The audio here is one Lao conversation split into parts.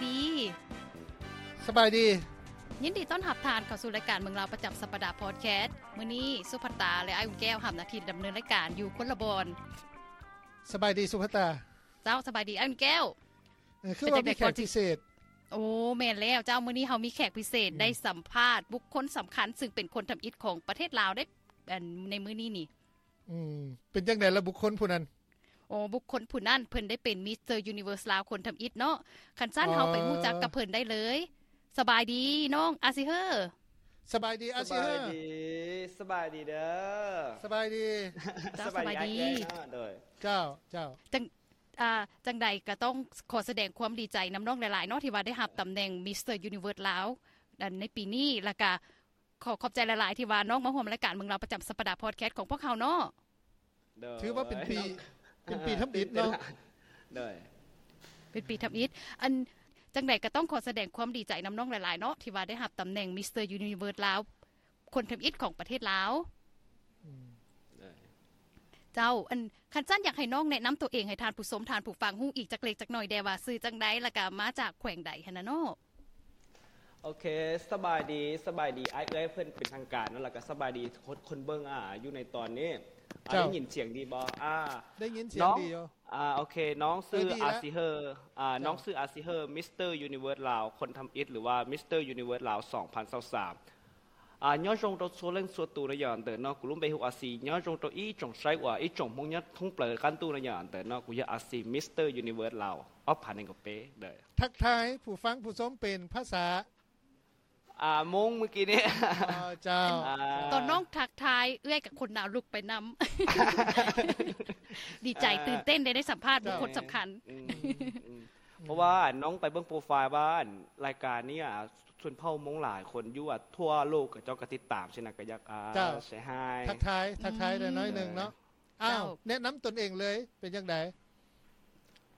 ດີ. ສະບາຍດີ. ຍິນດີຕ້ອນຮັບທ່ານເຂົ້າສູ່ລາຍການເມືອງລາວປະຈຳສັບປະດາພອດແຄສ. ມື້ນີ້ສຸພັດຕາ ແລະ ອ້າຍອຸ່ນແກ້ວຮັບໜ້າທີ່ດຳເນີນລາຍການຢູ່ຄົນລະບ່ອນ. ສະບາຍດີສຸພັດຕາ. ເຈົ້າ, ສະບາຍດີອ້າຍອຸ່ນແກ້ວ. ເອີ ຄືວ່າມີແຂກພິເສດ. ໂອ້ ແມ່ນແລ້ວເຈົ້າ, ມື້ນີ້ເຮົາມີແຂກພິເສດ ອືມ ໄດ້ສຳພາດບຸກຄົນສຳຄັນ ຊຶ່ງເປັນຄົນທຳອິດຂອງປະເທດລາວເດ້ ອັນ ໃນມື້ນີ້ນີ້. ອືມ ເປັນຈັ່ງໃດລະບຸກຄົນຜູ້ນັ້ນ? ໂອ້ ບຸກຄົນຜູ້ນັ້ນເພິ່ນໄດ້ເປັນມິສເຕີຢູນິເວີສລາວຄົນທຳອິດເນາະ. ຄັນຊັ້ນ ອໍ ເຮົາໄປຮູ້ຈັກກັບເພິ່ນໄດ້ເລີຍ. ສະບາຍດີນ້ອງອາຊິເຮີ. ສະບາຍດີອາຊິເຮີ. ສະບາຍດີ ສະບາຍດີເດີ. ສະບາຍດີ. ເຈົ້າ ສະບາຍດີ ສະບາຍດີ. ໂດຍ ເຈົ້າ ເຈົ້າ. ຈັ່ງ ອ່າ ຈັ່ງໃດກໍຕ້ອງຂໍສະແດງຄວາມດີໃຈນຳນ້ອງຫຼາຍໆເນາະ ທີ່ວ່າໄດ້ຮັບຕຳແໜ່ງມິສເຕີຢູນິເວີສລາວ ອັນ ໃນປີນີ້ ແລ້ວກໍ ຂໍຂອບໃຈຫຼາຍໆ ທີ່ວ່ານ້ອງມາຮ່ວມລາຍການເມືອງລາວປະຈຳສັບປະດາພອດແຄສຂອງພວກເຮົາເນາະ. ໂດຍ ຖືວ່າເປັນປີ ເປັນປີທຳອິດເນາະ. ໂດຍ ເປັນປີທຳອິດ. ອັນ ຈັ່ງໃດກໍຕ້ອງຂໍສະແດງຄວາມດີໃຈນຳນ້ອງຫຼາຍໆເນາະ ທີ່ວ່າໄດ້ຮັບຕຳແໜ່ງມິສເຕີຢູນິເວີສລາວ ຄົນທຳອິດຂອງປະເທດລາວ. ອືມ ເຈົ້າ ອັນ ຄັນຊັ້ນ ຢາກໃຫ້ນ້ອງແນະນຳຕົວເອງໃຫ້ທ່ານຜູ້ຊົມ ທ່ານຜູ້ຟັງຮູ້ອີກຈັກເລັກຈັກໜ້ອຍແດ່ວ່າຊື່ຈັ່ງໃດ ແລ້ວກະມາຈາກແຂວງໃດຫັ້ນນະເນາະ. ໂອເຄ ສະບາຍດີ ສະບາຍດີອ້າຍເອື້ອຍເພິ່ນເປັນທາງການເນາະ ແລ້ວກະສະບາຍດີຄົນ ຄົນເບິ່ງ ອ່າ ຢູ່ໃນຕອນນີ້. ອ່າ ເຈົ້າ ໄດ້ຍິນສຽງດີບໍ່? ອ່າ ໄດ້ຍິນສຽງດີຢູ່. ອ່າ ໂອເຄ ນ້ອງຊື່ ເອີ ດີແລ້ວ ອາຊິເຮີ. ອ່າ ເຈົ້າ ນ້ອງຊື່ອາຊິເຮີ ມິສເຕີຢູນິເວີສລາວ ຄົນທຳອິດ ຫຼືວ່າມິສເຕີຢູນິເວີສລາວ ສອງພັນຊາວສາມ. ອ່າ nhớ trong tôi số lên số tù nó giờ từ nó cũng luôn bị hụt à xì, nhớ trong tôi ý trong sai của ý trong mong nhất thông plờ căn tu nó giờ từ nó cũng giờ à xì Mister Universe Lào. Ốc phản ứng của bé. Đợi. ທັກທາຍຜູ້ຟັງຜູ້ຊົມເປັນພາສາ ອ່າ ມົ້ງມື້ກີ້ນີ້. ອໍ ເຈົ້າ. ອ່າ ຕອນນ້ອງທັກທາຍເອື້ອຍກັບຄົນໜາວລຸກໄປນຳ. ດີໃຈ ອ່າ ຕື່ນເຕັ້ນໄດ້ ໄດ້ສຳພາດບຸກຄົນສຳຄັນ. ເຈົ້າ ອືມ ອືມ ອືມ ເພາະວ່ານ້ອງໄປເບິ່ງໂປຣໄຟລ໌ວ່າ ອັນ ລາຍການນີ້ ອ່າ ຊົນເຜົ່າມົ້ງຫຼາຍຄົນຢູ່ ອ່າ ທົ່ວໂລກ ເຂົາເຈົ້າກໍຕິດຕາມຊີ້ນະ ກໍຢາກ ອ່າ ເຈົ້າ ເຊຮາຍ ທັກທາຍ ທັກທາຍໄດ້ໜ້ອຍໜຶ່ງເນາະ. ອືມ ອ້າວ ເຈົ້າ ແນະນຳຕົນເອງເລີຍ ເປັນຈັ່ງໃດ?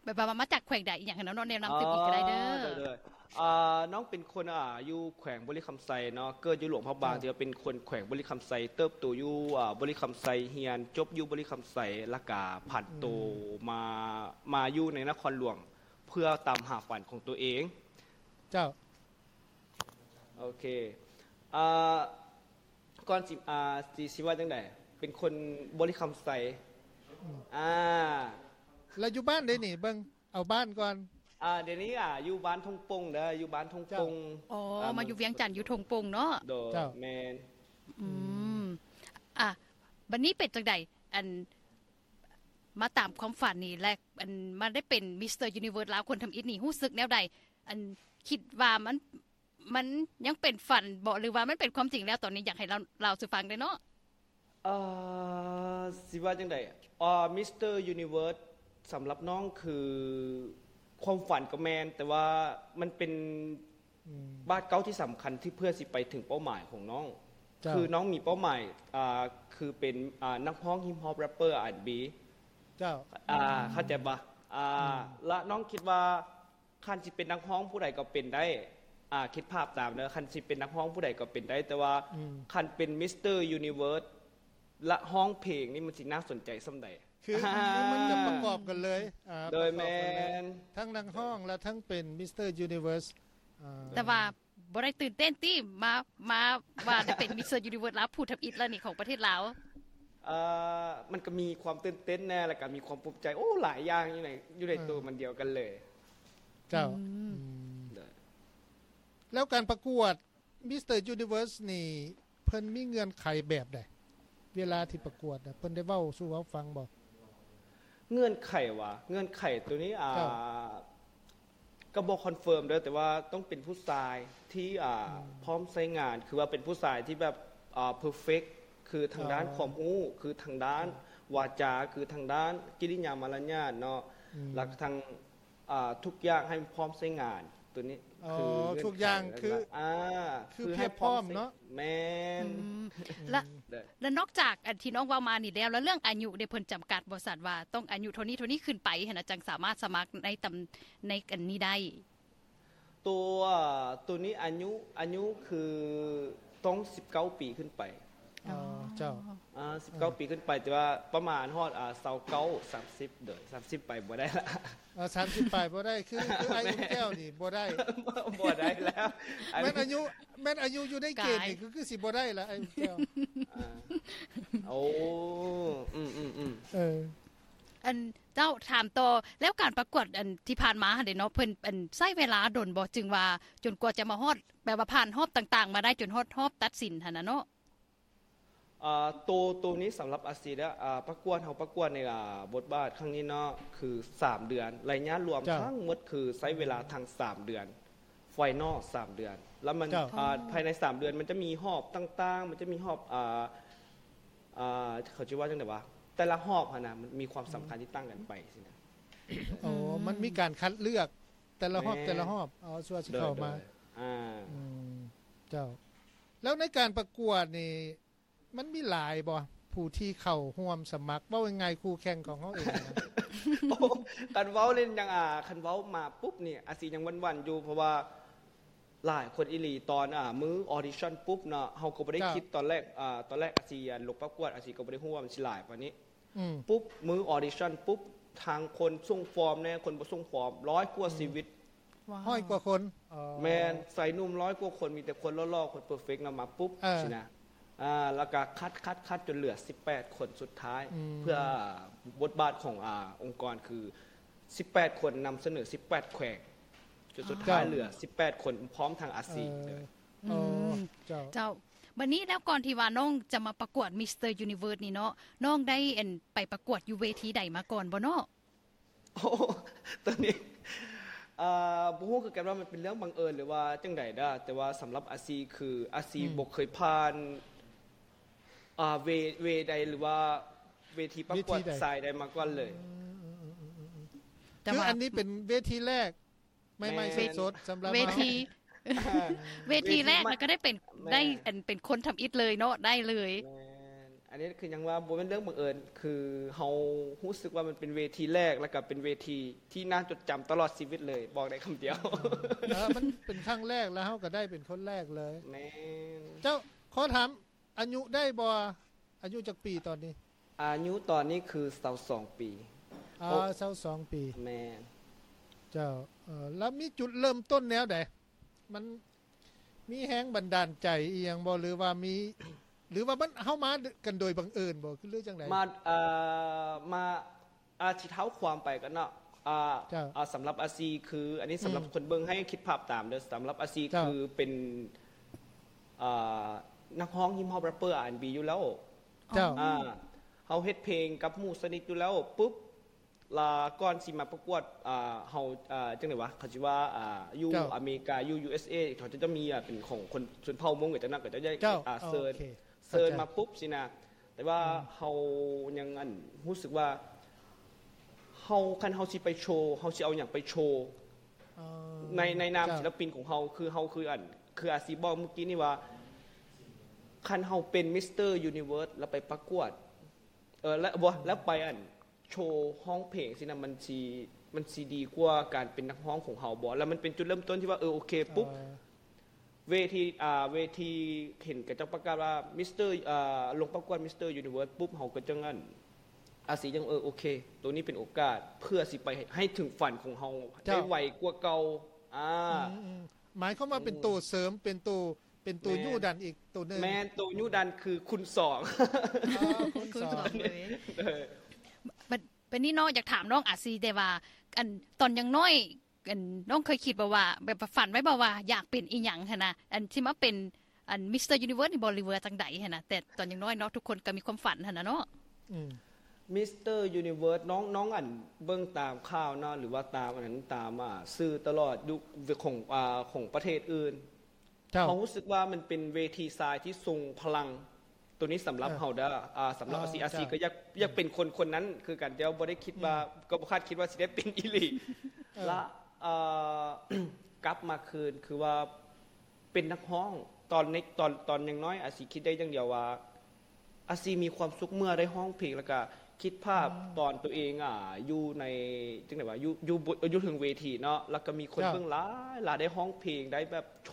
ແບບວ່າມາຈາກແຂວງໃດອີ່ຫຍັງຫັ້ນເນາະ ແນະນຳຕື່ມອີກກໍໄດ້ເດີ. ອໍ ໂດຍໆ ອ່າ ນ້ອງເປັນຄົນ ອ່າ ຢູ່ແຂວງບໍລິຄຳໄຊເນາະ ເກີດຢູ່ຫຼວງພະບາງ ເຈົ້າ ທີ່ວ່າເປັນຄົນແຂວງບໍລິຄຳໄຊ ເຕີບໂຕຢູ່ ອ່າ ບໍລິຄຳໄຊ ຮຽນຈົບຢູ່ບໍລິຄຳໄຊ ແລ້ວກະຜັນໂຕ ອືມ ມາ ມາຢູ່ໃນນະຄອນຫຼວງ ເພື່ອຕາມຫາຝັນຂອງໂຕເອງ. ເຈົ້າ. ໂອເຄ ອ່າ ກ່ອນຊິ ອ່າ ຊິ ຊິວ່າຈັ່ງໃດ ເປັນຄົນບໍລິຄຳໄຊ. ອືມ ອ່າ ແລ້ວຢູ່ບ້ານໃດນີ້ ເບິ່ງ ເອົາບ້ານກ່ອນ. ອ່າ ດຽວນີ້ ອ່າ ຢູ່ບ້ານທົ່ງປົງເດີ ຢູ່ບ້ານທົ່ງປົງ. ເຈົ້າ. ອໍ ອ່າ ມາຢູ່ວຽງຈັນຢູ່ທົ່ງປົງເນາະ. ໂດຍ. ເຈົ້າ. ແມ່ນ. ອືມ ອືມ ອ່າ ບັດນີ້ເປັນຈັ່ງໃດ ອັນ ມາຕາມຄວາມຝັນນີ້ ແລະ ອັນ ມາໄດ້ເປັນມິສເຕີຢູນິເວີສລາວຄົນທຳອິດນີ້ ຮູ້ສຶກແນວໃດ? ອັນ ຄິດວ່າມັນ ມັນຍັງເປັນຝັນບໍ ຫຼືວ່າມັນເປັນຄວາມຈິງແລ້ວ? ຕອນນີ້ຢາກໃຫ້ລາວ ລາວສູ່ຟັງໄດ້ເນາະ. ເອີ ຊິວ່າຈັ່ງໃດ ອ່າ ມິສເຕີຢູນິເວີສ ສຳລັບນ້ອງຄືຄວາມຝັນກໍແມ່ນ ແຕ່ວ່າມັນເປັນ ອືມ ບາດກ້າວທີ່ສຳຄັນທີ່ເພື່ອຊິໄປເຖິງເປົ້າໝາຍຂອງນ້ອງ. ເຈົ້າ. ຄືນ້ອງມີເປົ້າໝາຍ ອ່າ ຄືເປັນ ອ່າ ນັກຮ້ອງຮິບຮອບແຣັບເປີ ອາຣ໌ແອນด์ບີ. ເຈົ້າ. ອ່າ ອືມ ເຂົ້າໃຈບໍ່? ອ່າ ອືມ ລະນ້ອງຄິດວ່າ ຄັນຊິເປັນນັກຮ້ອງຜູ້ໃດກໍເປັນໄດ້ ອ່າ ຄິດພາບຕາມເດີ ຄັນຊິເປັນນັກຮ້ອງຜູ້ໃດກໍເປັນໄດ້ ແຕ່ວ່າ ອືມ ຄັນເປັນມິສເຕີຢູນິເວີສ ລະຮ້ອງເພງນີ້ ມັນຊິໜ້າສົນໃຈສ່ຳໃດ? ຄືມັນຈະປະກອບກັນເລີຍ. ອ່າ ໂດຍ. ປະກອບກັນເລີຍ. ແມ່ນ. ທັງນັກຮ້ອງ ແລະ ທັງເປັນມິສເຕີຢູນິເວີສ. ອ່າ ແຕ່ວ່າບໍ່ໄດ້ຕື່ນເຕັ້ນຕິ ມາ ມາວ່າໄດ້ເປັນມິສເຕີຢູນິເວີສລາວຜູ້ທຳອິດແລ້ວນີ້ ຂອງປະເທດລາວ? ເອີ ມັນກໍມີຄວາມຕື່ນເຕັ້ນແດ່ ແລ້ວກໍມີຄວາມພູມໃຈ ໂອ້ ຫຼາຍຢ່າງຢູ່ໃນ ຢູ່ໃນ ເອີ ໂຕມັນດຽວກັນເລີຍ. ເຈົ້າ. ອືມ ອືມ ໂດຍ. ແລ້ວການປະກວດມິສເຕີຢູນິເວີສນີ້ ເພິ່ນມີເງື່ອນໄຂແບບໃດ? ເວລາທີ່ປະກວດນະ ເພິ່ນໄດ້ເວົ້າສູ່ເຮົາຟັງບໍ່? ເງື່ອນໄຂຫວາ? ເງື່ອນໄຂໂຕນີ້ ອ່າ ເຈົ້າ. ກໍບໍ່ຄອນເຟີມເດີ ແຕ່ວ່າຕ້ອງເປັນຜູ້ຊາຍທີ່ ອ່າ ອືມ ພ້ອມໃຊ້ງານ ຄືວ່າເປັນຜູ້ຊາຍທີ່ແບບ ອ່າ ເພີເຟັກ ຄືທາງດ້ານ ອໍ ຄວາມຮູ້ ຄືທາງດ້ານ ອືມ ວາຈາ ຄືທາງດ້ານກິລິຍາມາລະຍາດເນາະ ອືມ ແລ້ວກໍທັງ ອ່າ ທຸກຢ່າງໃຫ້ມັນພ້ອມໃຊ້ງານ ໂຕນີ້ ອໍ ຄືເງື່ອນໄຂ ທຸກຢ່າງ ແລ້ວ ຄື ອ່າ ຄື ຄືໃຫ້ ພຽບພ້ອມເນາະ. ແມ່ນ. ອືມ ອືມ ແລະ ແລະນອກຈາກອັນທີ່ນ້ອງເວົ້າມານີ້ແລ້ວ ແລ້ວເລື່ອງອາຍຸເດ ເພິ່ນຈຳກັດບໍ່ຊັ້ນ ວ່າຕ້ອງອາຍຸເທົ່ານີ້ ເທົ່ານີ້ຂຶ້ນໄປຫັ້ນນະ ຈັ່ງສາມາດສະໝັກໃນຕຳ ໃນອັນນີ້ໄດ້? ໂຕ ໂຕນີ້ອາຍຸ ອາຍຸຄືຕ້ອງສິບເກົ້າປີຂຶ້ນໄປ. ອໍ ອໍ ເຈົ້າ ອ່າ ສິບເກົ້າ ອ່າ ປີຂຶ້ນໄປ ແຕ່ວ່າປະມານຮອດ ອ່າ ຊາວເກົ້າ ສາມສິບ ໂດຍ ສາມສິບ ໄປບໍ່ໄດ້ລະ. ເອີ ສາມສິບ ປາຍບໍ່ໄດ້ ຄື ຄືອ້າຍອຸ່ນແກ້ວນີ້ບໍ່ໄດ້ ບໍ່ໄດ້ແລ້ວ ອັນ ແມ່ນອາຍຸ ແມ່ນອາຍຸຢູ່ໃນເກນນີ້ ກາຍ ຄື ຄືຊິບໍ່ໄດ້ລະ ອ້າຍອຸ່ນແກ້ວ. ອ່າ ໂອ້ ອືມໆໆ ເອີ ອັນ ເຈົ້າ ຖາມຕໍ່ ແລ້ວການປະກວດອັນທີ່ຜ່ານມາຫັ້ນເດເນາະ ເພິ່ນອັນໃຊ້ເວລາດົນບໍ່ ຈຶ່ງວ່າຈົນກວ່າຈະມາຮອດ ແບບວ່າຜ່ານຮອບຕ່າງໆມາໄດ້ ຈົນຮອດຮອບຕັດສິນຫັ້ນນະເນາະ? ອ່າ ໂຕ ໂຕນີ້ສຳລັບອາຊີແລ້ວ ອ່າ ປະກວດ ເຮົາປະກວດໃນ ອ່າ ບົດບາດຄັ້ງນີ້ເນາະ ຄືສາມເດືອນ ໄລຍະລວມ ເຈົ້າ ທັງໝົດຄືໃຊ້ເວລາທັງສາມເດືອນ ໄຟນອລສາມເດືອນ ແລ້ວມັນ ເຈົ້າ ອ່າ ພາຍໃນສາມເດືອນມັນຈະມີຮອບຕ່າງໆ ມັນຈະມີຮອບ ອ່າ ອ່າ ເຂົາຊິວ່າຈັ່ງໃດວະ ແຕ່ລະຮອບຫັ້ນນະ ມັນມີຄວາມສຳຄັນທີ່ຕ່າງກັນໄປຊີ້ນະ. ໂອ້ ອືມ ມັນມີການຄັດເລືອກແຕ່ລະຮອບ ແມ່ນ ແຕ່ລະຮອບ ເອົາ ຊົ່ວຊິເຂົ້າມາ ໂດຍ ໂດຍ ອ່າ ອືມ ເຈົ້າ ແລ້ວໃນການປະກວດນີ້ ມັນມີຫຼາຍບໍ່ ຜູ້ທີ່ເຂົ້າຮ່ວມສະໝັກ ເວົ້າງ່າຍໆ ຄູ່ແຂ່ງຂອງເຮົາເອງນະ? ໂອ້ ຄັນເວົ້າເລີຍຍັງ ອ່າ ຄັນເວົ້າມາປຸບນີ້ ອາຊີຍັງຫວັ່ນໆຢູ່ ເພາະວ່າຫຼາຍຄົນອີ່ຫຼີ ຕອນ ອ່າ ມື້ອອດິຊັນປຸບເນາະ ເຮົາກໍບໍ່ໄດ້ ເຈົ້າ ຄິດຕອນແລກ ອ່າ ຕອນແລກອາຊີ ອ່າ ລົງປະກວດ ອາຊີກໍບໍ່ໄດ້ຮູ້ວ່າມັນຊິຫຼາຍປານນີ້ ອືມ ປຸບ ມື້ອອດິຊັນປຸບ ທັງຄົນສົ່ງຟອມແດ່ ຄົນບໍ່ສົ່ງຟອມ ຮ້ອຍກວ່າ ອືມ ຊີວິດ ວ້າວ ຮ້ອຍກວ່າຄົນ ເອີ ແມ່ນ ຊາຍໜຸ່ມຮ້ອຍກວ່າຄົນ ມີແຕ່ຄົນຫຼໍ່ໆ ຄົນເປີເຟັກນຳມາປຸບ ເອີ ຊີ້ນະ ອ່າ ແລ້ວກະຄັດ ຄັດ ຄັດ ຈົນເຫຼືອສິບແປດຄົນສຸດທ້າຍ ອືມ ເພື່ອບົດບາດຂອງ ອ່າ ອົງກອນຄືສິບແປດຄົນນຳສະເໜີສິບແປດແຂວງ ຈົນສຸດທ້າຍ ເຈົ້າ ເຫຼືອສິບແປດຄົນ ພ້ອມທັງອາຊີ ເອີ ເລີຍ. ອືມ ເຈົ້າ ເຈົ້າ ບັດນີ້ແລ້ວ ກ່ອນທີ່ວ່ານ້ອງຈະມາປະກວດ Mister Universe ນີ້ເນາະ ນ້ອງໄດ້ ອັນ ໄປປະກວດຢູ່ເວທີໃດມາກ່ອນບໍ່ເນາະ? ໂອ້ ໂຕນີ້ ເອີ ບໍ່ຮູ້ຄືກັນວ່າມັນເປັນເລື່ອງບັງເອີນ ຫຼືວ່າຈັ່ງໃດເດີ້ ແຕ່ວ່າສຳລັບອາຊີ ຄືອາຊີ ອືມ ບໍ່ເຄີຍຜ່ານ ອ່າ ເວ ເວໃດ ຫຼືວ່າເວທີປະກວດ ເວທີໃດ ຊາຍໃດມາກ່ອນເລີຍ. ອືມ ແຕ່ ຄື ວ່າ ອັນນີ້ເປັນເວທີແລກ ໃໝ່ໆ ແມ່ນ ສົດໆ ສຳລັບ ເວທີ ເຮົາ ເວທີແລກ ເວທີໃໝ່ ແລ້ວກໍໄດ້ເປັນ ແມ່ນ ໄດ້ ອັນ ເປັນຄົນທຳອິດເລີຍເນາະ ໄດ້ເລີຍ. ແມ່ນ ອັນນີ້ຄືຍັງວ່າບໍ່ແມ່ນເລື່ອງບັງເອີນ ຄືເຮົາຮູ້ສຶກວ່າມັນເປັນເວທີແລກ ແລ້ວກໍເປັນເວທີທີ່ໜ້າຈົດຈຳຕະຫຼອດຊີວິດເລີຍ ບອກໄດ້ຄຳດຽວ. ເອີ ມັນເປັນຄັ້ງແລກ ແລ້ວເຮົາກໍໄດ້ເປັນຄົນແລກເລີຍ. ແມ່ນ ເຈົ້າ ຂໍຖາມ ອາຍຸໄດ້ບໍ່? ອາຍຸຈັກປີຕອນນີ້? ອາຍຸຕອນນີ້ຄືຊາວສອງປີ. ອາ ໂອ້ ຊາວສອງປີ. ແມ່ນ. ເຈົ້າ ເອີ ແລ້ວມີຈຸດເລີ່ມຕົ້ນແນວໃດ? ມັນມີແຮງບັນດານໃຈອີ່ຫຍັງບໍ່? ຫຼືວ່າມີ ຫຼືວ່າມັນ ເຮົາມາກັນໂດຍບັງເອີນບໍ່? ຄື ຫຼືຈັ່ງໃດ? ມາ ເອີ ມາ ອາ ຊິເທົ້າຄວາມໄປກ່ອນເນາະ ອ່າ ເຈົ້າ ອ່າ ສຳລັບອາຊີ ຄື ອັນນີ້ສຳລັບ ອືມ ຄົນເບິ່ງໃຫ້ຄິດພາບຕາມເດີ້ ສຳລັບອາຊີ ເຈົ້າ ຄືເປັນ ອ່າ ນັກຮ້ອງຮິບຮອບ ແຣັບເປີ ອາ ແອັນ ບີ ຢູ່ແລ້ວ ເຈົ້າ ອ່າ ເຮົາເຮັດເພງກັບໝູ່ສະນິດຢູ່ແລ້ວ ປຸບ ລະ ກ່ອນຊິມາປະກວດ ອ່າ ເຮົາ ອ່າ ຈັ່ງໃດວະ ເຂົາຊິວ່າ ອ່າ ຢູ່ ເຈົ້າ ອາເມລິກາ ຢູ່ ຢູເອສເອ ເຂົາຈະ ຈະມີ ອ່າ ເປັນຂອງຄົນຊົນເຜົ່າມົ້ງ ເຂົາເຈົ້ານັ້ນ ເຂົາເຈົ້າ ເຈົ້າ ອ່າ ໂອເຄ ເຊີນ ເຊີນມາປຸບຊີ້ນະ ແຕ່ວ່າເຮົາຍັງ ອັນ ຮູ້ສຶກວ່າ ເຮົາ ຄັນເຮົາຊິໄປໂຊ ເຮົາຊິເອົາຫຍັງໄປໂຊ ໃນ ໃນນາມ ເຈົ້າ ສິລະປິນຂອງເຮົາ ຄືເຮົາ ຄື ອັນ ຄືອາຊີບອກມື້ກີ້ນີ້ວ່າ ຄັນເຮົາເປັນ Mister Universe ແລ້ວໄປປະກວດ ເອີ ແລ້ວ ບໍ່ ແລ້ວໄປ ອັນ ໂຊຮ້ອງເພງຊີ້ນະ ມັນຊິ ມັນຊິດີກວ່າການເປັນນັກຮ້ອງຂອງເຮົາບໍ່? ແລ້ວມັນເປັນຈຸດເລີ່ມຕົ້ນທີ່ວ່າ ເອີ ໂອເຄ ປຸບ ເອີ ເວທີ ອ່າ ເວທີເຫັນເຂົາເຈົ້າປະກາດວ່າ Mister ອ່າ ລົງປະກວດ Mister Universe ປຸບ ເຮົາກໍຈັ່ງ ອັນ ອາຊີຈັ່ງ ເອີ ໂອເຄ ໂຕນີ້ເປັນໂອກາດເພື່ອຊິໄປໃຫ້ເຖິງຝັນຂອງເຮົາ ເຈົ້າ ໄດ້ໄວກວ່າເກົ່າ ອ່າ ອືມ ອືມ ໝາຍຄວາມວ່າເປັນໂຕເສີມ ເປັນໂຕ ເປັນໂຕ ແມ່ນ ຍູ້ດັນອີກໂຕໜຶ່ງ ແມ່ນ ໂຕຍູ້ດັນຄືຄູນສອງ ອໍ ຄູນ ຄູນສອງ ສອງເລີຍ ເອີ ບັດ ບັດນີ້ເນາະ ຢາກຖາມນ້ອງອາຊີແດ່ວ່າ ອັນ ຕອນຍັງນ້ອຍ ອັນ ນ້ອງເຄີຍຄິດບໍ່ວ່າ ແບບວ່າຝັນໄວ້ບໍ່ວ່າຢາກເປັນອີ່ຫຍັງຫັ້ນນະ ອັນ ທີ່ມາເປັນ ອັນ Mister Universe ນີ້ບໍ່ ຫຼືວ່າຈັ່ງໃດຫັ້ນນະ ແຕ່ຕອນຍັງນ້ອຍເນາະ ທຸກຄົນກໍມີຄວາມຝັນຫັ້ນນະເນາະ ອືມ Mister Universe ນ້ອງ ນ້ອງ ອັນ ເບິ່ງຕາມຂ່າວເນາະ ຫຼືວ່າຕາມອັນນັ້ນ ຕາມ ອ່າ ສື່ຕະຫຼອດ ຢູ່ຂອງ ອ່າ ຂອງປະເທດອື່ນ ເຈົ້າ ເຮົາຮູ້ສຶກວ່າມັນເປັນເວທີຊາຍທີ່ຊົງພະລັງ ໂຕນີ້ສຳລັບ ເອີ ເຮົາເດີ້ ອ່າ ສຳລັບ ເອີ ອາຊີ ເຈົ້າ ອາຊີກໍຢາກ ຢາກເປັນຄົນ ອືມ ຄົນນັ້ນຄືກັນ ແຕ່ວ່າບໍ່ໄດ້ຄິດວ່າ ອືມ ກໍບໍ່ຄາດຄິດວ່າຊິໄດ້ເປັນອີ່ຫຼີ ເອີ ລະ ເອີ ກັບມາຄືນ ຄືວ່າເປັນນັກຮ້ອງ ຕອນໃນ ຕອນ ຕອນຍັງນ້ອຍ ອາຊີຄິດໄດ້ຢ່າງດຽວວ່າ ອາຊີມີຄວາມສຸກເມື່ອໄດ້ຮ້ອງເພງ ແລ້ວກະຄິດພາບ ອືມ ຕອນໂຕເອງ ອ່າ ຢູ່ໃນ ຈັ່ງໃດວະ ຢູ່ ຢູ່ ຢູ່ເທິງເວທີເນາະ ແລ້ວກະມີຄົນ ເຈົ້າ ເບິ່ງຫຼາຍ ຫຼາຍ ໄດ້ຮ້ອງເພງ ໄດ້ແບບໂຊ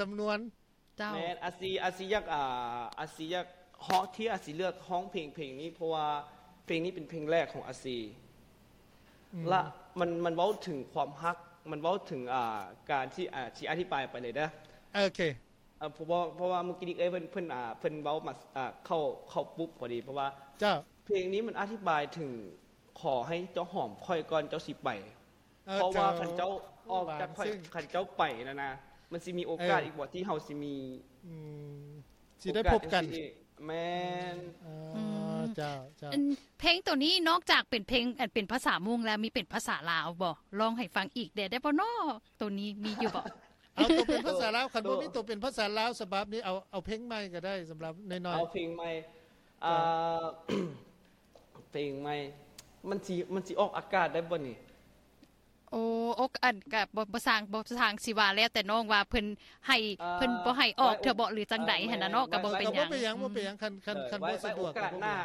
ສຳນວນ. ເຈົ້າ ແມ່ນ ອາຊີ ອາຊີຢາກ ອ່າ ອາຊີຢາກຮ້ອງ ທີ່ອາຊີເລືອກຮ້ອງເພງ ເພງນີ້ ເພາະວ່າເພງນີ້ເປັນເພງແລກຂອງອາຊີ ອືມ ລະມັນ ມັນເວົ້າເຖິງຄວາມຮັກ ມັນເວົ້າເຖິງ ອ່າ ການທີ່ ອາ ທີ່ອະທິບາຍໄປເລີຍເດີ ໂອເຄ ເອີ ເພາະວ່າ ເພາະວ່າມື້ກີ້ນີ້ເອື້ອຍເພິ່ນ ເພິ່ນ ອ່າ ເພິ່ນເວົ້າມາ ອ່າ ເຂົ້າ ເຂົ້າປຸບພໍດີ ເພາະວ່າ ເຈົ້າ ເພງນີ້ມັນອະທິບາຍເຖິງ ຂໍໃຫ້ເຈົ້າຫອມຂ້ອຍກ່ອນເຈົ້າຊິໄປ ເອີ ເພາະວ່າ ເຈົ້າ ຄັນເຈົ້າອອກຈາກຂ້ອຍ ໂອ້ ບາງຊຶ່ງ ຄັນເຈົ້າໄປນະນະ ມັນຊິມີໂອກາດ ເອີ ອີກບໍ່ທີ່ເຮົາຊິມີ ອືມ ຊິໄດ້ພົບກັນ ໂອກາດຈັ່ງຊີ້ອີກ ແມ່ນ ເອີ ອືມ ເຈົ້າ ເຈົ້າ ອັນ ເພງໂຕນີ້ນອກຈາກເປັນເພງ ອັນ ເປັນພາສາມົ້ງແລ້ວ ມີເປັນພາສາລາວບໍ່? ຮ້ອງໃຫ້ຟັງອີກແດ່ໄດ້ບໍ່ນໍ? ໂຕນີ້ມີຢູ່ບໍ່? ເອົາໂຕເປັນພາສາລາວ ຄັນບໍ່ມີໂຕເປັນພາສາລາວສະບັບນີ້ ເອົາ ເອົາເພງໃໝ່ກໍໄດ້ ສຳລັບນ້ອຍໆ ເອົາເພງໃໝ່ ເອີ ເພງໃໝ່ ມັນຊິ ມັນຊິອອກອາກາດໄດ້ບໍ່ນີ້? ໂອ້ ອອກ ອັນ ກະບໍ່ ບໍ່ຊ່າງ ບໍ່ຊ່າງ ຊິວ່າແລ້ວແຕ່ນ້ອງວ່າເພິ່ນໃຫ້ ເອີ ເພິ່ນບໍ່ໃຫ້ອອກເທື່ອບໍ່ ຫຼືຈັ່ງໃດຫັ້ນນະເນາະ ກະບໍ່ເປັນຫຍັງ ບໍ່ເປັນຫຍັງ ອືມ ບໍ່ເປັນຫຍັງ ຄັນ ຄັນ ເອີ ຄັນບໍ່ສະດວກ ໂອກາດໜ້າ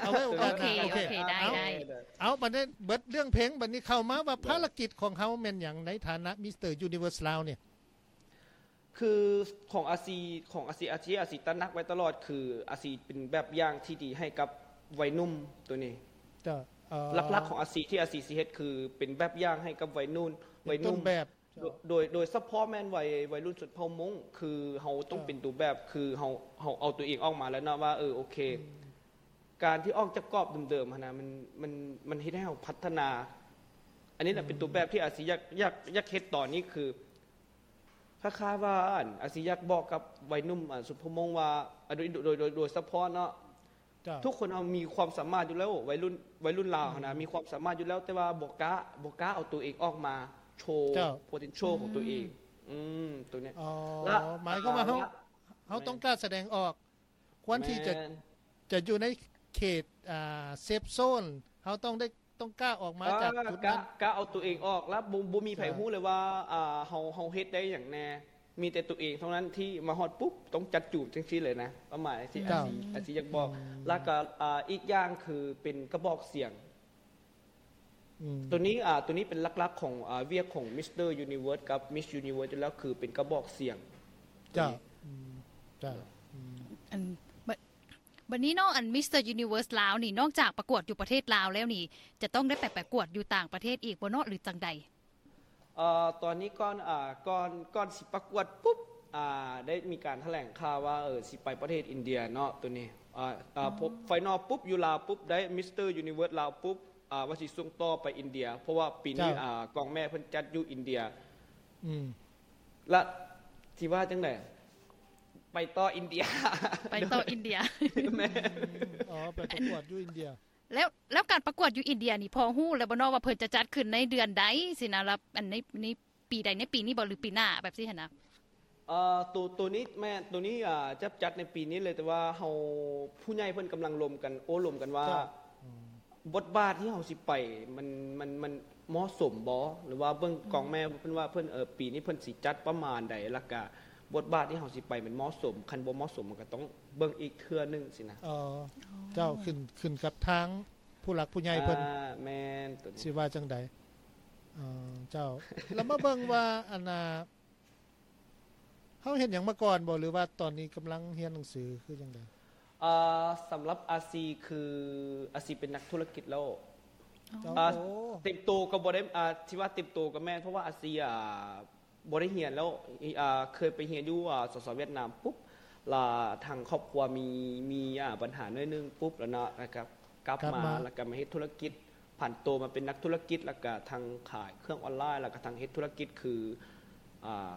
ເອົາໄວ້ໂອກາດໜ້າ ໂອເຄ ໂອເຄ ໂອເຄ ໄດ້ ໄດ້ ເອົາ ບັດນີ້ເບິດເລື່ອງເພງ ບັດນີ້ເຂົ້າມາວ່າ ເອີ ພາລະກິດຂອງເຮົາແມ່ນຫຍັງໃນຖານະ Mister Universe ລາວນີ້? ຄືຂອງອາຊີ ຂອງອາຊີ ອາຊີ ອາຊີຕະໜັກໄວ້ຕະຫຼອດ ຄືອາຊີເປັນແບບຢ່າງທີ່ດີໃຫ້ກັບໄວໜຸ່ມໂຕນີ້ ເຈົ້າ ເອີ ຫຼັກໆຂອງອາຊີທີ່ອາຊີຊິເຮັດ ຄືເປັນແບບຢ່າງໃຫ້ກັບໄວໜຸ່ມ ເປັນຕົ້ນແບບ ໄວໜຸ່ມ ເຈົ້າ ໂດຍ ໂດຍສະເພາະແມ່ນໄວ ໄວລຸ້ນຊົນເຜົ່າມົ້ງ ຄືເຮົາຕ້ອງ ເຈົ້າ ເປັນໂຕແບບ ຄືເຮົາ ເຮົາເອົາໂຕເອງອອກມາແລ້ວເນາະວ່າ ເອີ ໂອເຄ ອືມ ການທີ່ອອກຈາກກອບເດີມໆຫັ້ນນະ ມັນ ມັນ ມັນເຮັດໃຫ້ເຮົາພັດທະນາ ອັນນີ້ແຫຼະ ອືມ ເປັນໂຕແບບທີ່ອາຊີຢາກ ຢາກ ຢາກເຮັດຕອນນີ້ ຄື ຄ້າຍໆວ່າ ອັນ ອາຊີຢາກບອກກັບໄວໜຸ່ມ ອັນ ຊຸມພະມົງວ່າ ອາ ໂດຍ ໂດຍ ໂດຍ ໂດຍສະເພາະເນາະ ເຈົ້າ ທຸກຄົນເຮົາມີຄວາມສາມາດຢູ່ແລ້ວ ໄວລຸ້ນ ໄວລຸ້ນລາວຫັ້ນນະ ອືມ ມີຄວາມສາມາດຢູ່ແລ້ວ ແຕ່ວ່າບໍ່ກ້າ ບໍ່ກ້າເອົາໂຕເອງອອກມາໂຊ ເຈົ້າ ໂພເທັນໂຊ ອືມ ຂອງໂຕເອງ ອືມ ໂຕນີ້ ອໍ ລະ ໝາຍຄວາມວ່າເຮົາ ລະ ເຮົາຕ້ອງກ້າສະແດງອອກ ຄວນທີ່ຈະ ແມ່ນ ຈະຢູ່ໃນເຂດ ອ່າ ເຊຟໂຊນ ເຮົາຕ້ອງໄດ້ ຕ້ອງກ້າອອກມາຈາກ ອ່າ ຈຸດນັ້ນ ກ້າ ກ້າເອົາໂຕເອງອອກ ແລ້ວບໍ່ ບໍ່ມີໃຜ ເຈົ້າ ຮູ້ເລີຍວ່າ ອ່າ ເຮົາ ເຮົາເຮັດໄດ້ຫຍັງແດ່ ມີແຕ່ຕົວເອງເທົ່ານັ້ນທີ່ມາຮອດປຸບຕ້ອງຈັດຈູມຈັ່ງຊີ້ເລີຍນະ ປະມານຈັ່ງຊີ້. ເຈົ້າ ອາຊີ ອາຊີຢາກບອກ ອືມ ແລ້ວກໍ ອ່າ ອີກຢ່າງຄືເປັນກະບອກສຽງ. ອືມ ໂຕນີ້ ອ່າ ໂຕນີ້ເປັນຫຼັກໆຂອງ ອ່າ ວຽກຂອງ Mister Universe ກັບ Miss Universe ຢູ່ແລ້ວ ຄືເປັນກະບອກສຽງ. ເຈົ້າ ໂຕນີ້ ອືມ ເຈົ້າ ອືມ ອັນ ບ- ບັດນີ້ເນາະ ອັນ Mister Universe ລາວນີ້ ນອກຈາກປະກວດຢູ່ປະເທດລາວແລ້ວນີ້ ຈະຕ້ອງໄດ້ໄປປະກວດຢູ່ຕ່າງປະເທດອີກບໍ່ເນາະ ຫຼື ຈັ່ງໃດ? ເອີ ຕອນນີ້ກ່ອນ ອ່າ ກ່ອນ ກ່ອນຊິປະກວດປຸບ ອ່າ ໄດ້ມີການຖະແຫຼງຂ່າວວ່າ ເອີ ຊິໄປປະເທດອິນເດຍເນາະ ໂຕນີ້ ອ່າ ອ່າ ອືມ final ປຸບ ຢູ່ລາວປຸບ ໄດ້ Mister Universe ລາວປຸບ ອ່າ ວ່າຊິສົ່ງຕໍ່ໄປອິນເດຍ ເພາະວ່າປີນີ້ ເຈົ້າ ອ່າ ກອງແມ່ເພິ່ນຈັດຢູ່ອິນເດຍ. ອືມ ລະຊິວ່າຈັ່ງໃດ? ໄປຕໍ່ອິນເດຍ ໄປຕໍ່ອິນເດຍ. ແມ່ນ ອືມ ອໍ ໄປປະກວດຢູ່ອິນເດຍ. ແລ້ວ ແລ້ວການປະກວດຢູ່ອິນເດຍນີ້ ພໍຮູ້ແລ້ວບໍ່ເນາະວ່າເພິ່ນຈະຈັດຂຶ້ນໃນເດືອນໃດຊີ້ນະ ລະ ອັນໃນ ໃນປີໃດ ໃນປີນີ້ບໍ່ ຫຼື ປີໜ້າແບບຊີ້ຫັ້ນນະ? ເອີ ໂຕ ໂຕນີ້ແມ່ນ ໂຕນີ້ ອ່າ ຈະຈັດໃນປີນີ້ເລີຍ ແຕ່ວ່າເຮົາ ຜູ້ໃຫຍ່ເພິ່ນກຳລັງລົມກັນ ໂອ້ລົມກັນວ່າ ເຈົ້າ ອືມ ບົດບາດທີ່ເຮົາຊິໄປ ມັນ ມັນ ມັນເໝາະສົມບໍ່ ຫຼືວ່າເບິ່ງ ອືມ ກອງແມ່ເພິ່ນວ່າເພິ່ນ ເອີ ປີນີ້ເພິ່ນຊິຈັດປະມານໃດ ແລ້ວກະບົດບາດທີ່ເຮົາຊິໄປມັນເໝາະສົມ ຄັນບໍ່ເໝາະສົມມັນກໍຕ້ອງເບິ່ງອີກເທື່ອໜຶ່ງຊີ້ນະ. ອໍ ອໍ ເຈົ້າ ຂຶ້ນ ຂຶ້ນກັບທາງຜູ້ຫຼັກຜູ້ໃຫຍ່ເພິ່ນ. ອ່າ ແມ່ນ ໂຕນີ້ ຊິວ່າຈັ່ງໃດ? ອໍ ເຈົ້າ ແລ້ວມາເບິ່ງວ່າ ອັນນ່າ ເຮົາເຮັດຫຍັງມາກ່ອນບໍ່ ຫຼືວ່າຕອນນີ້ກຳລັງຮຽນໜັງສືຄືຈັ່ງໃດ? ອ່າ ສຳລັບອາຊີ ຄືອາຊີເປັນນັກທຸລະກິດແລ້ວ. ອໍ ອ່າ ໂອ້ ເຕັມໂຕກໍບໍ່ໄດ້ ອ່າ ທີ່ວ່າເຕັມໂຕກໍແມ່ນ ເພາະວ່າອາຊີ ອ່າ ບໍ່ໄດ້ຮຽນແລ້ວ ອ່າ ເຄີຍໄປຮຽນຢູ່ ອ່າ ສສ ຫວຽດນາມປຸບ ລະທາງຄອບຄົວມີ ມີ ອ່າ ບັນຫາໜ້ອຍໜຶ່ງປຸບ ລະເນາະ ລະກໍກັບ ກັບມາ ມາ ລະກໍມາເຮັດທຸລະກິດ ຜັນໂຕມາເປັນນັກທຸລະກິດ ລະກະທັງຂາຍເຄື່ອງອອນລາຍ ລະກະທັງເຮັດທຸລະກິດ ຄື ອ່າ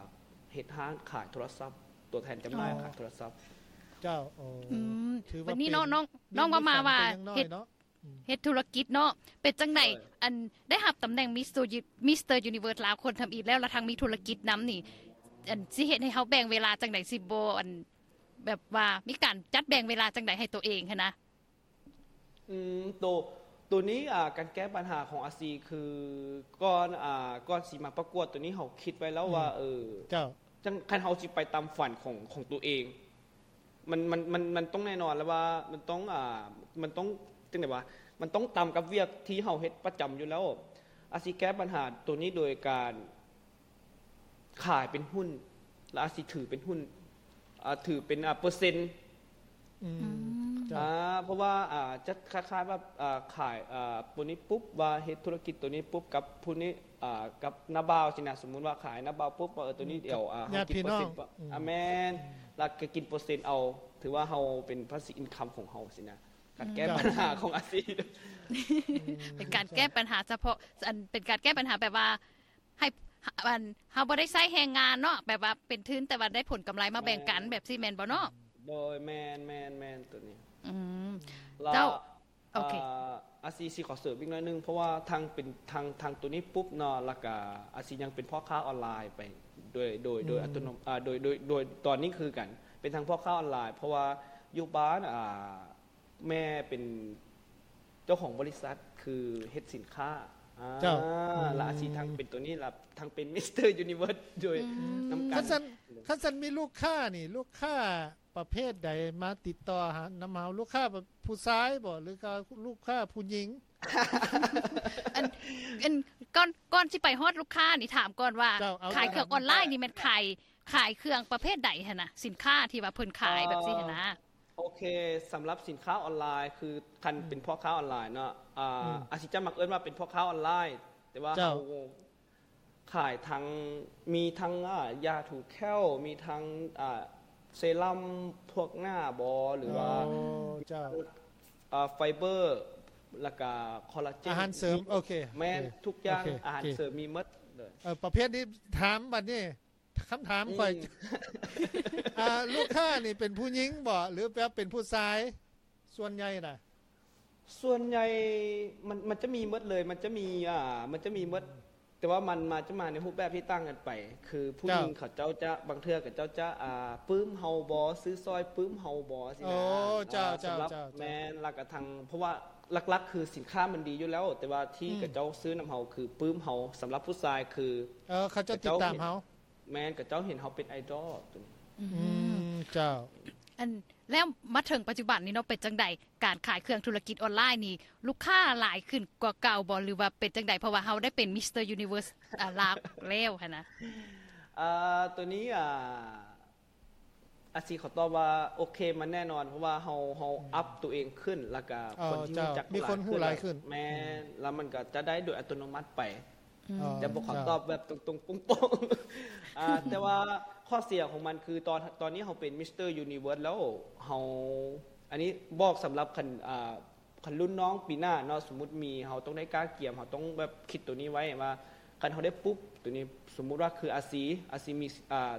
ເຮັດຮ້ານຂາຍໂທລະສັບ ຕົວແທນຈຳໜ່າຍ ອໍ ຂາຍໂທລະສັບ. ເຈົ້າ ໂອ້ ອືມ ຖືວ່າ ບັດນີ້ເນາະ ເປັນ ນ້ອງ ມີ ນ້ອງເວົ້າມາວ່າ ມີຝັນແຕ່ຍັງນ້ອຍເນາະ. ເຮັດ ອືມ ເຮັດທຸລະກິດເນາະ ເປັນຈັ່ງໃດ? ໂດຍ ອັນ ໄດ້ຮັບຕຳແໜ່ງ Mister Uni- Mister Universe ລາວຄົນທຳອິດແລ້ວ ລະທັງມີທຸລະກິດນຳນີ້ ອັນ ຊິເຮັດໃຫ້ເຮົາແບ່ງເວລາຈັ່ງໃດ ຊິບໍ່ ອັນ ແບບວ່າມີການຈັດແບ່ງເວລາຈັ່ງໃດໃຫ້ຕົວເອງຫັ້ນນະ? ອືມ ໂຕ ໂຕນີ້ ອ່າ ການແກ້ບັນຫາຂອງອາຊີ ຄື ກ່ອນ ອ່າ ກ່ອນຊິມາປະກວດໂຕນີ້ ເຮົາຄິດໄວ້ແລ້ວວ່າ ອືມ ເອີ ເຈົ້າ ຈັ່ງ ຄັນເຮົາຊິໄປຕາມຝັນຂອງ ຂອງໂຕເອງ ມັນ ມັນ ມັນ ມັນຕ້ອງແນ່ນອນແລ້ວວ່າ ມັນຕ້ອງ ອ່າ ມັນຕ້ອງ ຈັ່ງໃດວະ ມັນຕ້ອງຕາມກັບວຽກທີ່ເຮົາເຮັດປະຈຳຢູ່ແລ້ວ. ອາຊີແກ້ບັນຫາໂຕນີ້ໂດຍການ ຂາຍເປັນຫຸ້ນ ແລ້ວອາດຊິຖືເປັນຫຸ້ນ ອ່າ ຖືເປັນ ອ່າ ເປີເຊັນ. ອືມ ອືມ ເຈົ້າ ອ່າ ເພາະວ່າ ອ່າ ຈະຄ້າຍໆວ່າ ອ່າ ຂາຍ ອ່າ ໂຕນີ້ປຸບ ວ່າເຮັດທຸລະກິດໂຕນີ້ປຸບກັບຜູ້ນີ້ ອ່າ ກັບນ້າບ່າວຊີ້ນະ ສົມມຸດວ່າຂາຍນ້າບ່າວປຸບ ວ່າ ເອີ ໂຕນີ້ ອືມ ດຽວ ອ່າ ເຮົາກິນເປີເຊັນ ອືມ ອ່າ ແມ່ນ ອືມ ແລ້ວກໍກິນເປີເຊັນເອົາ ຖືວ່າເຮົາເປັນພາສີອິນຄັມຂອງເຮົາຊີ້ນະ. ການແກ້ ອືມ ບັນຫາຂອງອາຊີບ ອືມ ເປັນການແກ້ບັນຫາສະເພາະ ອັນ ເປັນການແກ້ບັນຫາແບບວ່າ ໃຫ້ ອັນ ເຮົາບໍ່ໄດ້ໃຊ້ແຮງງານເນາະ ແບບວ່າເປັນທຶນ ແຕ່ວ່າໄດ້ຜົນກຳໄລມາແບ່ງກັນ ແມ່ນ ແບບຊີ້ແມ່ນບໍ່ເນາະ? ໂດຍ ແມ່ນໆໆ ໂຕນີ້ ອືມ ລະ ເຈົ້າ ໂອເຄ ອາ ອາຊີຊິຂໍເສີມອີກໜ້ອຍໜຶ່ງ ເພາະວ່າທັງເປັນ ທັງ ທັງໂຕນີ້ປຸບເນາະ ລະກະອາຊີຍັງເປັນພໍ່ຄ້າອອນລາຍໄປໂດຍ ໂດຍ ໂດຍ ອືມ ອັດຕະໂນ ອາ ໂດຍ ໂດຍ ໂດຍຕອນນີ້ຄືກັນ ເປັນທັງພໍ່ຄ້າອອນລາຍ ເພາະວ່າຢູ່ບ້ານ ອາ ແມ່ເປັນເຈົ້າຂອງບໍລິສັດ ຄືເຮັດສິນຄ້າ ອາ ເຈົ້າ ອືມ ລະອາຊີທັງເປັນໂຕນີ້ ລະທັງເປັນ Mister Universe ໂດຍ ອືມ ນຳກັນ. ຄັນຊັ້ນ ຄັນຊັ້ນມີລູກຄ້ານີ້ ລູກຄ້າປະເພດໃດມາຕິດຕໍ່ຫາ ນຳເຮົາ? ລູກຄ້າຜູ້ຊາຍບໍ່ ຫຼືກໍລູກຄ້າຜູ້ຍິງ? ອັນ ອັນ ກ່ອນ ກ່ອນຊິໄປຮອດລູກຄ້ານີ້ ຖາມກ່ອນວ່າ ເຈົ້າ ເອົາ ຂາຍເຄື່ອງອອນລາຍນີ້ແມ່ນຂາຍ ຂາຍເຄື່ອງປະເພດໃດຫັ້ນນະ? ສິນຄ້າທີ່ວ່າເພິ່ນຂາຍແບບຊີ້ຫັ້ນນະ. ໂອເຄ ສຳລັບສິນຄ້າອອນລາຍ ຄືຄັນ ອືມ ເປັນພໍ່ຄ້າອອນລາຍເນາະ ອ່າ ອືມ ອາຊີຈະມັກເອີ້ນວ່າເປັນພໍ່ຄ້າອອນລາຍ ແຕ່ວ່າ ເຈົ້າ ເຮົາຂາຍທັງ ມີທັງ ອ່າ ຢາຖູແຂ້ວ ມີທັງ ອ່າ ເຊຣຳພວກໜ້າບໍ ຫຼືວ່າ ໂອ້ ເຈົ້າ ອ່າ ໄຟເບີ ແລ້ວກະຄໍລາເຈນ ອາຫານເສີມ ມີ ໂອເຄ ແມ່ນ ໂອເຄ ທຸກຢ່າງ ໂອເຄ ອາຫານເສີມມີໝົດເລີຍ. ເອີ ປະເພດນີ້ຖາມບັດນີ້ ຄຳຖາມຂ້ອຍ ອືມ ອ່າ ລູກຄ້ານີ້ເປັນຜູ້ຍິງບໍ ຫຼືວ່າເປັນຜູ້ຊາຍ ສ່ວນໃຫຍ່ນະ? ສ່ວນໃຫຍ່ມັນ ມັນຈະມີໝົດເລີຍ ມັນຈະມີ ອ່າ ມັນຈະມີໝົດ ອືມ ແຕ່ວ່າມັນມາ ຈະມາໃນຮູບແບບທີ່ຕ່າງກັນໄປ ຄືຜູ້ຍິງ ເຈົ້າ ເຂົາເຈົ້າຈະ ບາງເທື່ອເຂົາເຈົ້າຈະ ອ່າ ປຶ້ມເຮົາບໍ ຊື້ຊ່ອຍປຶ້ມເຮົາບໍ ຊີ້ນະ. ໂອ້ ເຈົ້າ ອ່າ ເຈົ້າ ສຳລັບ ເຈົ້າ ເຈົ້າ ແມ່ນ ລະກະທັງ ເພາະວ່າຫຼັກໆຄືສິນຄ້າມັນດີຢູ່ແລ້ວ ແຕ່ວ່າທີ່ ອືມ ເຂົາເຈົ້າຊື້ນຳເຮົາຄືປຶ້ມເຮົາ ສຳລັບຜູ້ຊາຍຄື ເອີ ເຂົາເຈົ້າຕິດຕາມເຮົາ. ແມ່ນ ຂະເຈົ້າເຫັນເຮົາເປັນໄອດອລໂຕນີ້. ອືມ ອືມ ເຈົ້າ. ອັນ ແລ້ວມາເຖິງປັດຈຸບັນນີ້ເນາະ ເປັນຈັ່ງໃດ ການຂາຍເຄື່ອງທຸລະກິດອອນລາຍນີ້ ລູກຄ້າຫຼາຍຂຶ້ນກວ່າເກົ່າບໍ່ ຫຼືວ່າເປັນຈັ່ງໃດ ເພາະວ່າເຮົາໄດ້ເປັນມິສເຕີຢູນິເວີສ ອາ ລາວແລ້ວຫັ້ນນະ? ອາ ໂຕນີ້ ອາ ອາຊີຂໍຕອບວ່າໂອເຄ ມັນແນ່ນອນ ເພາະວ່າເຮົາ ເຮົາອັບໂຕເອງຂຶ້ນ ແລ້ວກະຄົນທີ່ຮູ້ຈັກ ມີຄົນຮູ້ຫຼາຍຂຶ້ນ ແມ່ນ ແລ້ວມັນກະຈະໄດ້ໂດຍອັດຕະໂນມັດໄປ. ອືມ ແຕ່ບໍ່ຂໍຕອບແບບຕົງໆໂປ່ງໆ ອາ ແຕ່ວ່າຂໍ້ເສຍຂອງມັນຄືຕອນ ຕອນນີ້ເຮົາເປັນມິສເຕີຢູນິເວີສແລ້ວ ເຮົາ ອັນນີ້ບອກສຳລັບຄັນ ອາ ຄັນລຸ້ນນ້ອງປີໜ້າເນາະ ສົມມຸດມີ ເຮົາຕ້ອງໄດ້ກະກຽມ ເຮົາຕ້ອງແບບຄິດໂຕນີ້ໄວ້ວ່າ ຄັນເຮົາໄດ້ປຸບໂຕນີ້ ສົມມຸດວ່າຄືອາຊີ ອາຊີມີ ອາ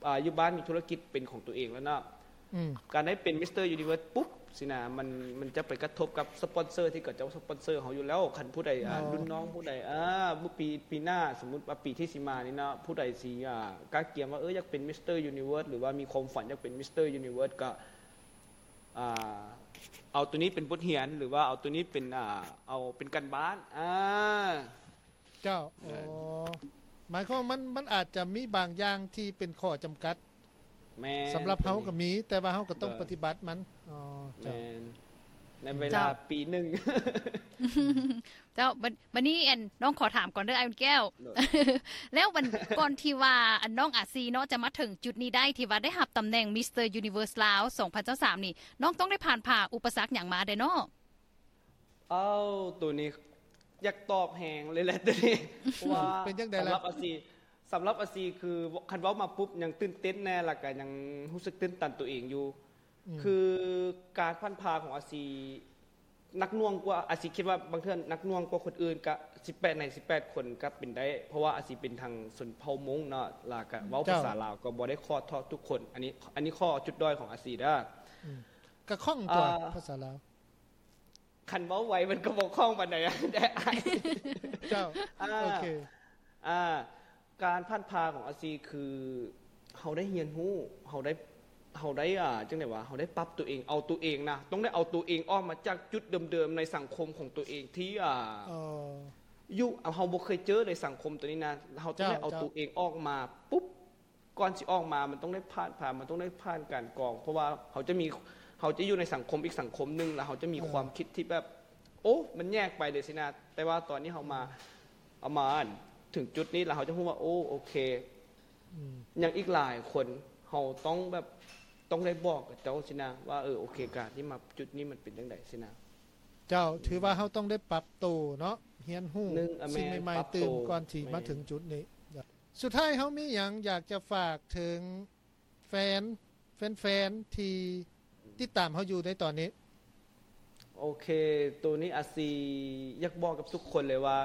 ອາ ຢູ່ບ້ານມີທຸລະກິດເປັນຂອງຕົວເອງແລ້ວເນາະ ອືມ ການໄດ້ເປັນມິສເຕີຢູນິເວີສປຸບຊີ້ນະ ມັນ ມັນຈະໄປກະທົບກັບສະປອນເຊີທີ່ເຂົາເຈົ້າສະປອນເຊີເຮົາຢູ່ແລ້ວ ຄັນຜູ້ໃດ ອາ ລຸ້ນນ້ອງຜູ້ໃດ ອາ ມື້ປີ ປີໜ້າ ສົມມຸດວ່າປີທີ່ຊິມານີ້ເນາະ ຜູ້ໃດຊິ ອາ ກະກຽມວ່າ ເອີ ຢາກເປັນມິສເຕີຢູນິເວີສ ຫຼືວ່າມີຄວາມຝັນຢາກເປັນມິສເຕີຢູນິເວີສ ກະ ອາ ເອົາໂຕນີ້ເປັນບົດຮຽນ ຫຼືວ່າເອົາໂຕນີ້ເປັນ ອາ ເອົາເປັນການບ້ານ ອາ ເຈົ້າ ໂອ້ ໝາຍຄວາມມັນ ມັນອາດຈະມີບາງຢ່າງທີ່ເປັນຂໍ້ຈຳກັດ ແມ່ນ ສຳລັບເຮົາກໍມີ ແຕ່ວ່າເຮົາກໍຕ້ອງປະຕິບັດມັນ ເຈົ້າ ອືມ ແມ່ນ ໃນເວລາປີໜຶ່ງ ເຈົ້າ. ບາດ ບາດນີ້ ອັນ ນ້ອງຂໍຖາມກ່ອນເດີ ອ້າຍອຸ່ນແກ້ວ ແລ້ວມັນ ກ່ອນທີ່ວ່າ ອັນ ນ້ອງອາຊີເນາະ ຈະມາເຖິງຈຸດນີ້ໄດ້ ທີ່ວ່າໄດ້ຮັບຕຳແໜ່ງມິສເຕີຢູນິເວີສລາວສອງພັນຊາວສາມນີ້ ນ້ອງຕ້ອງໄດ້ຜ່ານຜ່າອຸປະສັກຫຍັງມາແດ່ເນາະ? ເອົ້າ ໂຕນີ້ຢາກຕອບແຮງເລີຍແຫຼະໂຕນີ້ ເພາະວ່າ ເປັນຈັ່ງໃດລະ ສຳລັບອາຊີ ສຳລັບອາຊີຄື ຄັນເວົ້າມາປຸບ ຍັງຕື່ນເຕັ້ນແນ່ ແລ້ວກະຍັງຮູ້ສຶກຕື່ນຕັນໂຕເອງຢູ່ ອືມ ຄືການຜ່ານຜ່າຂອງອາຊີ ໜັກໜ່ວງກວ່າ ອາຊີຄິດວ່າບາງເທື່ອໜັກໜ່ວງກວ່າຄົນອື່ນ ກະສິບແປດໃນສິບແປດຄົນກະເປັນໄດ້ ເພາະວ່າອາຊີເປັນທາງຊົນເຜົ່າມົ້ງເນາະ ແລ້ວກະເວົ້າພາສາລາວກໍບໍ່ໄດ້ຄອດເທາະທຸກຄົນ ອັນນີ້ ອັນນີ້ຂໍ້ຈຸດດ້ອຍຂອງອາຊີເດີ ອືມ ກະຄ່ອງຕົວະ ພາສາລາວ ຄັນເວົ້າໄວມັນກໍບໍ່ຄ່ອງປານໃດເດ້ອ້າຍ ເຈົ້າ ອາ ໂອເຄ ອາ ການຜ່ານຜ່າຂອງອາຊີຄື ເຮົາໄດ້ຮຽນຮູ້ ເຮົາໄດ້ ເຮົາໄດ້ ອາ ຈັ່ງໃດວະ ເຮົາໄດ້ປັບໂຕເອງ ເອົາໂຕເອງນະ ຕ້ອງໄດ້ເອົາໂຕເອງອອກມາຈາກຈຸດເດີມໆໃນສັງຄົມຂອງໂຕເອງທີ່ ອາ ເອີ ຢູ່ ເຮົາບໍ່ເຄີຍເຈີໃນສັງຄົມໂຕນີ້ນະ ເຮົາຕ້ອງໄດ້ເອົາໂຕເອງອອກມາປຸບ ກ່ອນຊິອອກມາ ມັນຕ້ອງໄດ້ຜ່ານ ຜ່ານ ມັນຕ້ອງໄດ້ຜ່ານການກອງ ເພາະວ່າເຮົາຈະມີ ເຮົາຈະຢູ່ໃນສັງຄົມອີກສັງຄົມໜຶ່ງ ແລ້ວເຮົາຈະມີຄວາມຄິດທີ່ແບບ ໂອ້ ມັນແຍກໄປເລີຍຊີ້ນະ ແຕ່ວ່າຕອນນີ້ເຮົາມາ ເຮົາມາ ອັນ ເຖິງຈຸດນີ້ ແລ້ວເຮົາຈະຮູ້ວ່າ ໂອ້ ໂອເຄ ອືມ ຍັງອີກຫຼາຍຄົນ ເຮົາຕ້ອງແບບ ຕ້ອງໄດ້ບອກກັບເຈົ້າຊີ້ນະ ວ່າ ເອີ ໂອເຄ ການທີ່ມາຈຸດນີ້ມັນເປັນຈັ່ງໃດຊີ້ນະ ເຈົ້າ ອືມ ຖືວ່າເຮົາຕ້ອງໄດ້ປັບໂຕເນາະ ຮຽນຮູ້ສິ່ງໃໝ່ໆຕື່ມ ກ່ອນຊິມາເຖິງຈຸດນີ້ ສຸດທ້າຍເຮົາມີຫຍັງຢາກຈະຝາກເຖິງແຟນ ແຟນໆທີ່ຕິດຕາມເຮົາຢູ່ໃນຕອນນີ້? ໂອເຄ ໂຕນີ້ອາຊີຢາກບອກກັບທຸກຄົນເລີຍວ່າ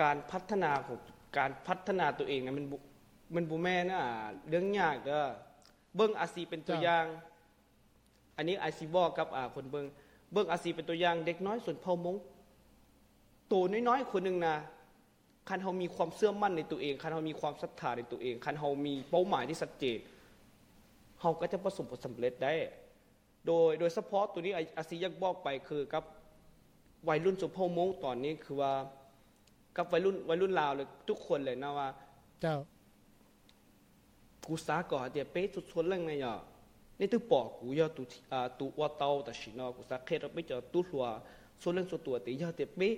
ການພັດທະນາຂອງ ການພັດທະນາໂຕເອງນະ ມັນບໍ່ ມັນບໍ່ແມ່ນ ອາ ເລື່ອງຍາກເດີ ເບິ່ງອາຊີເປັນຕົວຢ່າງ ອັນນີ້ອາຊີບອກກັບ ອາ ຄົນເບິ່ງ ເບິ່ງອາຊີເປັນຕົວຢ່າງ ເດັກນ້ອຍຊົນເຜົ່າມົ້ງ ໂຕນ້ອຍໆຄົນໜຶ່ງນະ ຄັນເຮົາມີຄວາມເຊື່ອໝັ້ນໃນຕົວເອງ, ຄັນເຮົາມີຄວາມສັດທາໃນຕົວເອງ, ຄັນເຮົາມີເປົ້າໝາຍທີ່ຊັດເຈນ, ເຮົາກໍຈະປະສົບຜົນສຳເລັດໄດ້. ໂດຍ ໂດຍສະເພາະໂຕນີ້ ອາ ອາຊີຢາກບອກໄປຄືກັບໄວລຸ້ນຊົນເຜົ່າມົ້ງຕອນນີ້ ຄືວ່າກັບໄວລຸ້ນ ໄວລຸ້ນລາວ ແລະ ທຸກຄົນເລີຍເນາະວ່າ ເຈົ້າ Ku sa ko ha tia pe tu tho leng na ya. Ni tu po ku ya tu, a, tu wa tau ta shi no. Ku sa khe ra pe ja tu hlua tho leng tho tua te ya te pe.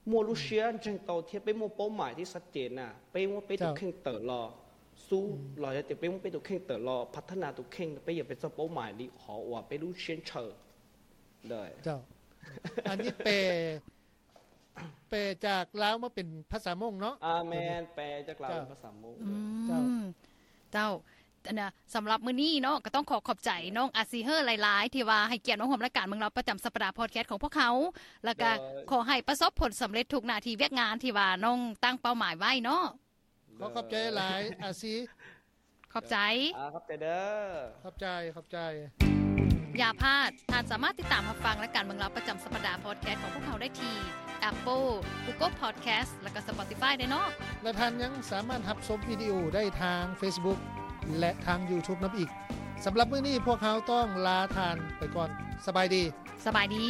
Mo lu shia jeng tau thia pe mo pau mai ti sat jen na. Pe mo pe tu kheng tau lo. Su lo ya te pe mo pe tu kheng tau lo. Phat thana tu kheng pe ya pe tsa pau mai li ho wa pe lu shia chau. ເຈົ້າ ອັນນີ້ແປ ແປຈາກລາວມາເປັນພາສາມົ້ງເນາະ? ອາ ແມ່ນ ແປຈາກລາວເປັນພາສາມົ້ງ. ເຈົ້າ ເຈົ້າ ອັນນະ ສຳລັບມື້ນີ້ເນາະ ກໍຕ້ອງຂໍຂອບໃຈນ້ອງອາຊີເຮີຫຼາຍໆ ທີ່ວ່າໃຫ້ກຽດມາຮ່ວມລາຍການເມືອງລາວປະຈຳສັບປະດາພອດແຄສຂອງພວກເຮົາ ແລ້ວກໍ ໂດຍ ຂໍໃຫ້ປະສົບຜົນສຳເລັດທຸກໜ້າທີ່ວຽກງານທີ່ວ່ານ້ອງຕັ້ງເປົ້າໝາຍໄວ້ເນາະ. ໂດຍ ຂໍຂອບໃຈຫຼາຍ ອາຊີ. ຂອບໃຈ. ອາ ຂອບໃຈເດີ. ຂອບໃຈ ຂອບໃຈ. ຢ່າພາດ, ທ່ານສາມາດຕິດຕາມຮັບຟັງລາຍການເມືອງລາວປະຈຳສັບປະດາພອດແຄສຂອງພວກເຮົາໄດ້ທີ່ Apple, Google Podcast ແລະ ກໍ Spotify ໄດ້ເນາະ. ແລະ ທ່ານຍັງສາມາດຮັບຊົມວິດີໂອໄດ້ທາງ Facebook ແລະ ທາງ YouTube ນຳອີກ. ສຳລັບມື້ນີ້ພວກເຮົາຕ້ອງລາທ່ານໄປກ່ອນ. ສະບາຍດີ. ສະບາຍດີ.